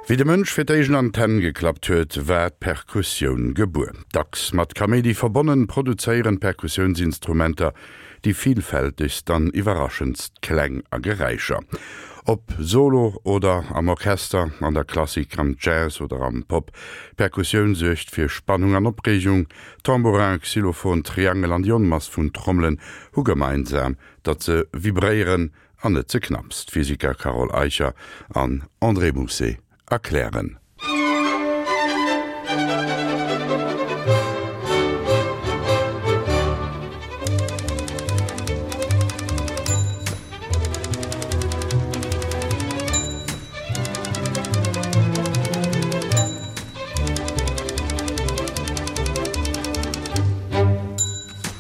Wéi de Mënsch fir d'éischt an d'Hänn geklappt huet, war d'Perkussioun gebuer. Dacks mat Kaméidi verbonnen, produzéieren d'Perkussiounsinstrumenter déi villfältegst an iwwerraschendst Kläng a Geräischer. Ob solo oder am Orchester, an der Klassik, am Jazz oder am Pop, d'Perkussioun suergt fir Spannung an Opreegung. Tambourin, Xylophon, Triangel an déi Onmass vun Trommelen hu gemeinsam, datt se vibréieren An net ze knapps, d'Physiker Carole Eicher an André Mousset erklären.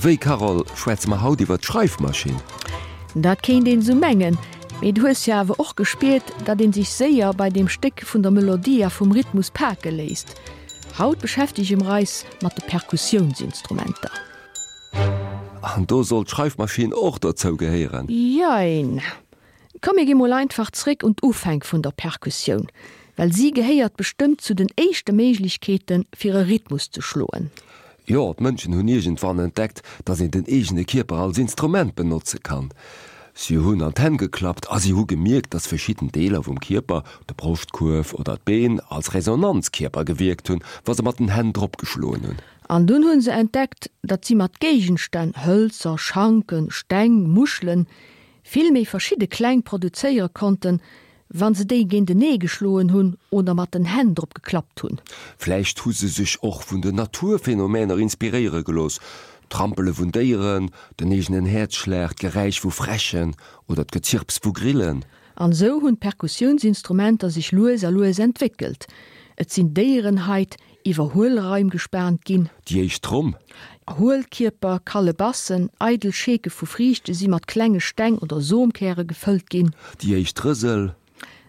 Wéi, Carole, schwätze mer haut iwwer d'Schreifmaschinn? Dat kéint een esou mengen, mee du hues jo awer och gespiert, datt een sech séier bei deem Stéck vun der Melodie a vum Rhythmus pake léisst. Haut beschäftege mer eis mat de Perkussiounsinstrumenter. An do soll d'Schreifmaschinn och dozou gehéieren? Jein. Komm mir gi mol einfach zréck un d'Ufänk vun der Perkussioun, well si gehéiert bestëmmt zu den éischte Méiglechkeete fir e Rhythmus ze schloen. Jo, d'Mënschen hunn iergendwann entdeckt, datt een den eegene Kierper als Instrument benotze kann. Si hunn an d'Hänn geklappt a si hu gemierkt, datt verschidden Deeler vum Kierper, de Broschtkuerf oder d'Been, als Resonanzkierper gewierkt hunn, wa se mat den Hänn drop geschloen hunn. An dunn hu se entdeckt, datt si mat Géigenstänn, Hëlzer, Schanken, Steng, Muschelen, vill méi verschidde Kläng produzéiere konnten, wa se déi géintenee geschloen hunn oder mat den Hänn drop geklappt hunn. Vläicht hu se sech och vun den Naturphänomäner inspiréiere gelooss, d'Trampele vun Déieren, den eegenen Häerzschlag, d'Geräisch vu Fräschen oder d'Gezirps vu Grillen. An esou hunn d'Perkussiounsinstrumenter sech lues a lues entwéckelt. Et sinn Déierenhait iwwer Huelraim gespaant ginn. Déi éischt Tromm. Huelkierper, Kalebassen, eidel Scheeke vu Friichte si mat klenge Steng oder Somkäre gefëllt ginn. Déi éischt Rësel.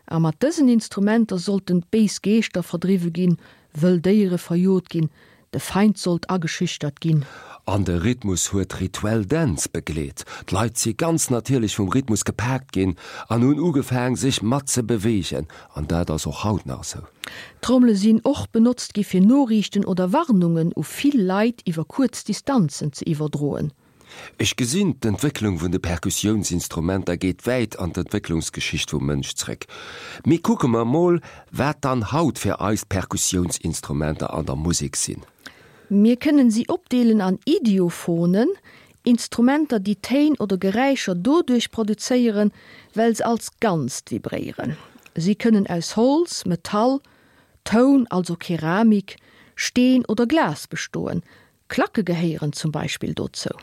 A mat dësen Instrumenter sollten béis Geeschter verdriwwe ginn, wëll Déiere verjot ginn, de Feind sollt ageschüchtert ginn. An de Rhythmus huet rituell Dänz begleet. D'Leit si ganz natierlech vum Rhythmus gepaakt ginn an hunn ugefaang sech mat ze beweegen. An dat ass och haut nach esou. Trommele sinn och benotzt gi fir Noriichten oder Warnungen u vill Leit iwwer kuerz Distanzen ze iwwerdroen. Ech gesinn, d'Entwécklung vun de Perkussiounsinstrumenter geet wäit an d'Entwécklungsgeschicht vum Mënsch zréck. Mee kucke mer mol, wat dann haut fir eis d'Perkussiounsinstrumenter an der Musek sinn. Mir kënnen si opdeelen an Idiophonen, Instrumenter, déi Téin oder Geräischer doduerch produzéieren, well se als Ganzt vibréieren. Si kënnen aus Holz, Metall, Toun, also Keramik, Steen oder Glas bestoen. Klacke gehéieren zum Beispill dozou.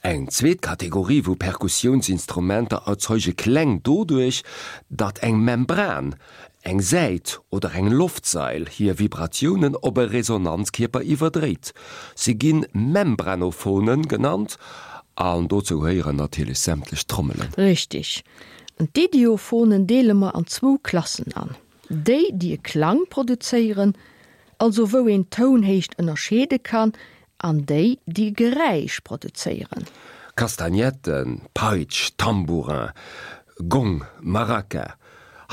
Eng zweet Kategorie vu Perkussiounsinstrumenter erzeuge Kläng doduerch, datt eng Membran, eng Säit oder eng Loftsail hir Vibratiounen op e Resonanzkierper iwwerdréit. Se gi Membranophonen genannt an dozou gehéieren natierlech sämtlech Trommelen. Richtig. An d'Idiophonen deele mer an zwou Klassen an, déi, déi e Klang produzéieren, also wou een d'Tounhéicht ënnerscheede kann, an déi, déi e Geräisch produzéieren. Kastagnetten, Peitsch, Tambourin, Gong, Maraca.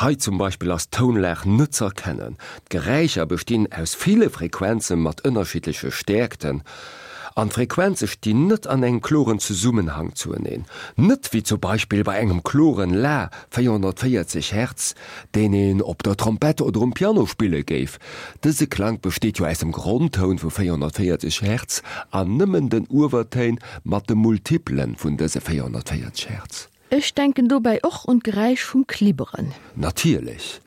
Hei zum Beispill ass d'Tounlag net z'erkennen. D'Geräischer bestinn aus ville Frequenze mat ënnerschiddleche Stäerkten. An d'Frequenze stinn net an engem kloren Zesummenhang zueneen. Net wéi zum Beispill bei engem kloren La, 440 Hertz, deen een op der Trompett oder um Piano spille géif. Dëse Klank besteet jo aus dem Grondtoun vu 440 Hertz an nëmmen den Uewertéin mat de Multiplen vun dëse 440 Hertz. Ech denken dobäi och un d'Geräisch vum Klibberen. Natierlech.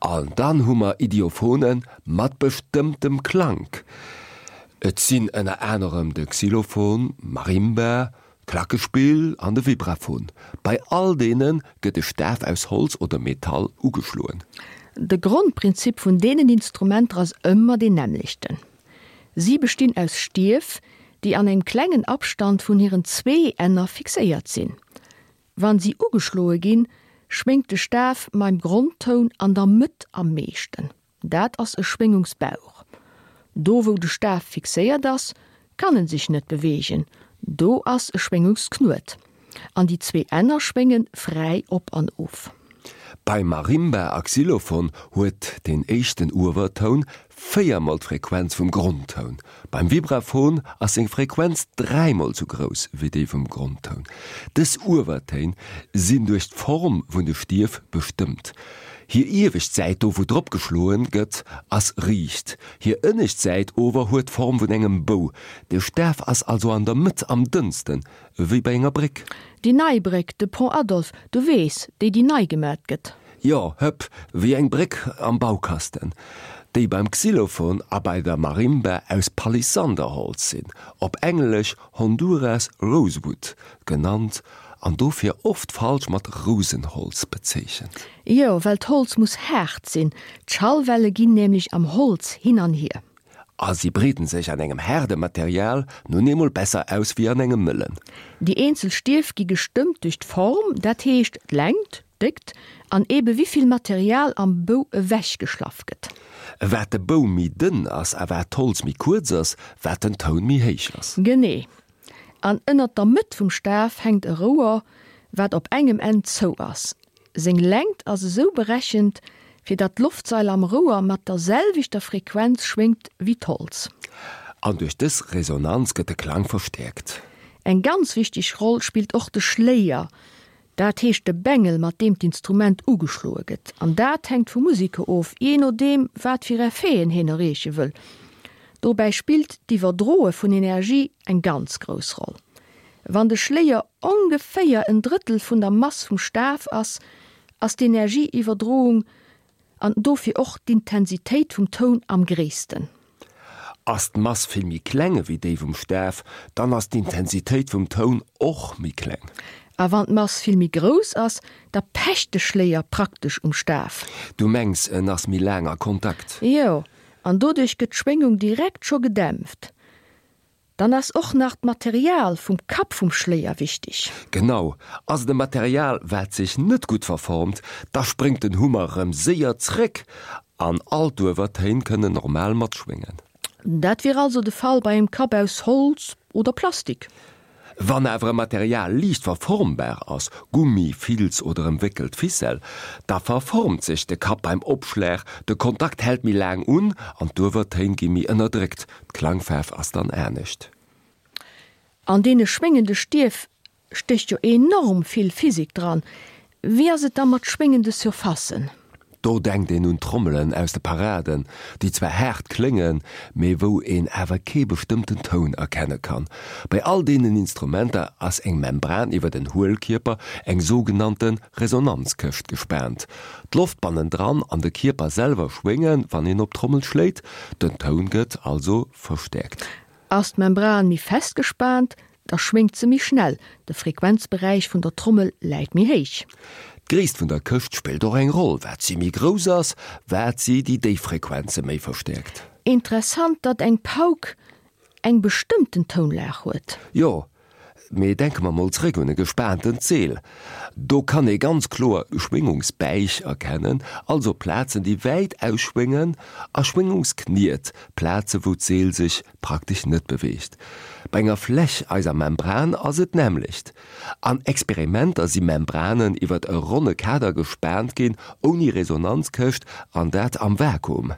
An dann hu mer Idiophone mat bestëmmtem Klank. Et sinn ënner anerem de Xylophon, Marimba, d'Klackespill an de Vibraphon. Bei all deene gëtt e Staf aus Holz oder Metall ugeschloen. De Grondprinzip vun deenen Instrumenter ass ëmmer deen nämmlechten. Si bestinn aus Stief, déi an engem klengen Abstand vun hiren zwee Enner fixéiert sinn. Wann si ugeschloe ginn, schwéngt de Staf maim Grondtoun an der Mëtt am meeschten. Dat ass e Schwéngungsbauch. Do wou de Staf fixéiert ass, kann en sech net beweegen, do ass e Schwéngungsknuet. An déi zwee Enner schwénge fräi op an of. Bei Marimba a Xylophon huet den éischten Uewertoun véiermol d'Frequenz vum Grondtoun. Beim Vibraphon ass seng Frequenz dräimol sou grouss wéi déi vum Grondtoun. Dës Uewertéin sinn duerch d'Form vun de Stief bestëmmt. Hir iewescht Säit, do wou drop geschloen gëtt, ass riicht. Hir ënnescht Säit ower huet d'Form vun engem Bou. De Staf ass also an der Mëtt am dënnsten, wéi bei enger Bréck. Déi nei Bréck, de Pont Adolphe, du weess, déi déi nei gemat gëtt. Jo, hëpp, wéi eng Bréck am Baukasten, déi beim Xylophon a bei der Marimba aus Palisanderholz sinn, op Englesch Honduras Rosewood genannt an dofir oft falsch mat Rousenholz bezeechent. Jo, well d'Holz muss haart sinn, d'Schallwelle ginn nämlech am Holz hin an hier. A si breeden sech an engem haarde Material nun eemol besser aus wéi an engem mëllen. Déi eenzel Stief gi gestëmmt duerch d'Form, dat heescht d'Längt, d'Déckt an ebe wivill Material am Bou ewech geschlaff gëtt. Wat de Bou méi dënn ass a wat d'Holz méi kuerz ass, wat den Toun méi héich ass. Genee. An ënnert der Mëtt vum Staf hänkt e Rouer, wat op engem Enn zou ass. Seng Längt ass esou berechent, fir datt d'Loftsail am Rouer mat der selwechter Frequenz schwéngt wéi d'Holz. An duerch dës Resonanz gëtt de Klang verstäerkt. Eng ganz wichteg Roll spillt och de Schléier, dat heescht de Bengel, mat deem d'Instrument ugeschloe gëtt. An dat hänkt vum Museker of, jee nodeem wat fir Effeten hien erreeche wëll. Dobäi spillt d'Iwwerdroe vun Energie eng ganz grouss Roll. Wann de Schléier ongeféier en Drëttel vun der Mass vum Staf ass, ass d'Energieiwwerdroung an dofir och d'Intensitéit vum Toun am gréissten. Ass d'Mass vill méi kleng ewéi déi vum Staf, dann ass d'Intensitéit vum Toun och méi kleng. A wann d'Mass vill méi grouss ass, da pecht de Schléier praktesch um Staf. Du mengs en ass méi laang a Kontakt? Jo, an doduerch gëtt d'Schwéngung direkt scho gedämpft. Dann ass och nach d'Material vum Kapp vum Schléier wichteg. Genau, ass et e Material wat sech net gutt verformt, da spréngt den Hummer rëm séier zréck an all d'Uewertéin kënnen normal matschwéngen. Dat wier also de Fall bei engem Kapp aus Holz oder Plastik. Wann awer e Material liicht verformbar ass, Gummi, Filz oder ëmwéckelt Ficelle, da verformt sech de Kapp beim Opschlag, de Kontakt hält méi laang un an d'Uewertéin gi méi ënnerdréckt. D'Klangfaarf ass dann anescht. An deene schwéngende Stief stécht jo enorm vill Physik dran. Wéi ass et da mat schwéngende Surfacen? Do denkt een un d'Trommelen aus de Paraden, déi zwar haart kléngen, mee wou een awer kee bestëmmten Toun erkenne kann. Bei all deenen Instrumenter ass eng Membran iwwer den Huelkierper, eng sougenannte Resonanzkëscht, gespaant. D'Loft bannendran an de Kierper selwer schwéngen, wann een op d'Trommel schléit, den Toun gëtt also verstäerkt. Ass d'Membran méi fest gespaant, da schwéngt se méi schnell, de Frequenzberäich vun der Trommel läit méi héich. D'Gréisst vun der Këscht spillt och eng Roll, wat si méi grouss ass, wat si déi déif Frequenze méi verstäerkt. Interessant, datt eng Pauk eng bestëmmten Tounlag huet. Jo, Mee denke mer mol zréck un e gespaantent Zeel. Do kann ee ganz kloer Schwéngungsbäich erkennen, also Plazen déi wäit ausschwéngen, a Schwéngungskniet, Plaze wou d'Seel sech praktesch net beweegt. Bei enger Fläch, eiser Membran, ass et d'nämmlecht. An Experimenter si Membranen iwwert e ronne Kader gespaant ginn, ouni Resonanzkëscht, an dat am Vakuum.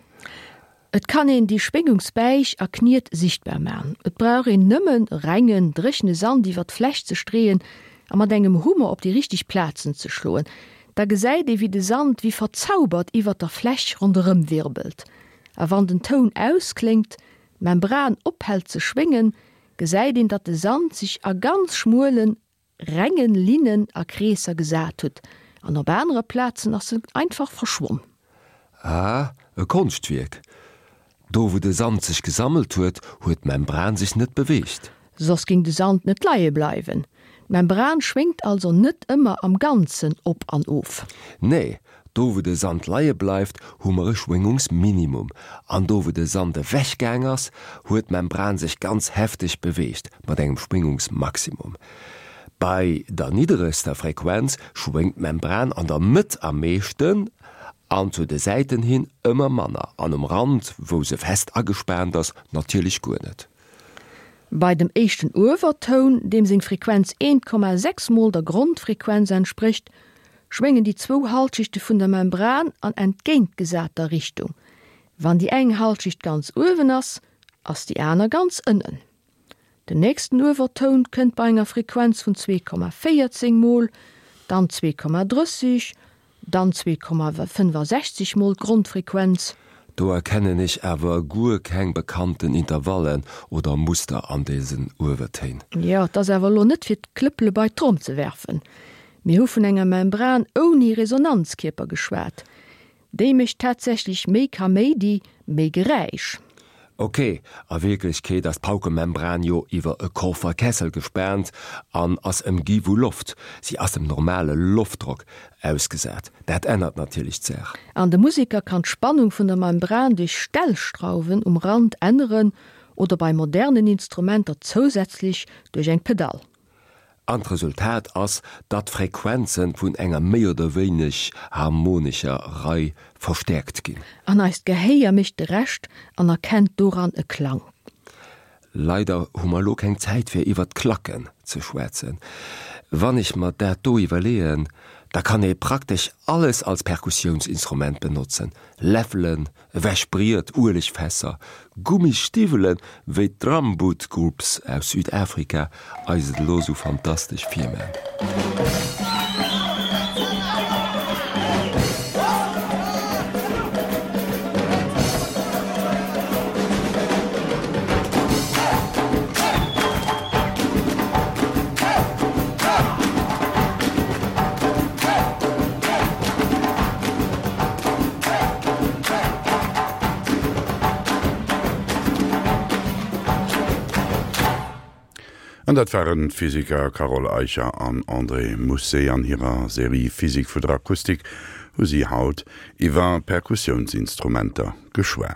Et kann een déi Schwéngungsbäich a Kniet sichtbar man. Et brauch een nëmmen rengen, dréchene Sand iwwer d'Fläch ze streeën a mat engem Hummer op déi richteg Plazen ze schloen. Da gesäit ee wéi de Sand wéi verzaubert iwwer der Fläch ronderëm wirbelt. A wann den Toun auskléngt, d'Membran ophält ze schwéngen, gesäit een datt de Sand sech a ganz schmuelen, rengen Linnen a Kreesser gesat hutt, an op anere Plazen ass se einfach verschwonn. Ah, e Konschtwierk. Do wou de Sand sech gesammelt huet, huet d'Membran sech net beweegt. Soss ging de Sand net leie bleiwen. D'Membran schwéngt also net ëmmer am Ganzen op an of. Nee, Do wou de Sand leie bleift, hu mer e Schwéngungsminimum, an do wou de Sand ewech gaang ass, huet d'Membran sech ganz hefteg beweegt, mat engem Schwéngungsmaximum. Bei der nidderegster Frequenz schwéngt d'Membran an der Mëtt am meeschten an zu de Säiten hin ëmmer manner, an um Rand, wou se fest agespaant ass, natierlech guer net. Bei dem éischten Uewertoun, deem seng Frequenz 1,6 mol der Grondfrequenz entsprécht,. schwéngen déi zwou Halschichte vun der Membran an entgéintgesater Richtung. Wann déi eng Halschicht ganz uewen ass, ass déi aner ganz ënnen. Den nächsten Uewertoun kënnt bei enger Frequenz vun 2,14 mol, dann 2,30, dann 2,65 mol d'Grondfrequenz. Do erkennen ech awer guer keng bekannten Intervallen oder Muster an desen Uewertéin. Jo, et ass awer elo net fir d'Klëppele bei d'Tromm ze werfen. Mir hu vun enger Membran ouni Resonanzkierper geschwat. Déi mécht tatsächlech méi Kaméidi, méi Geräisch. Ok, a Wierklechkeet ass d'Paukemembran jo iwwer e Kofferkessel gespaant an ass ëmgi vu Loft. Si ass dem normale Loftdrock ausgesat. Dat ännert natierlech d'Saach. An de Museker kann d'Spannung vun der Membran duerch Stellschrauwen um Rand änneren oder bei modernen Instrumenter zousätzlech duerch eng Pedall. An d'Resultat ass, datt d'Frequenze vun enger méi oder wéineg harmonescher Rei verstäerkt ginn. An eist Gehéier mécht de Rescht an erkennt doran e Klang. Leider hu mer elo keng Zäit fir iwwert d'Klacken ze schwätzen. Wann ech mer dat do iwwerleeën, da kann ee praktesch alles als Perkussiounsinstrument benotzen, Läffelen, Ewech Briet, Uelegfässer, Gummisstiwwelen, wéi d'Drumboot Groups aus Südafrika eis et elo sou fantastesch virman. An dat waren d'Physiker Carole Eicher an André Mousset. An hirer Serie Physik vu der Akustik hu si haut iwwer Perkussiounsinstrumenter geschwat.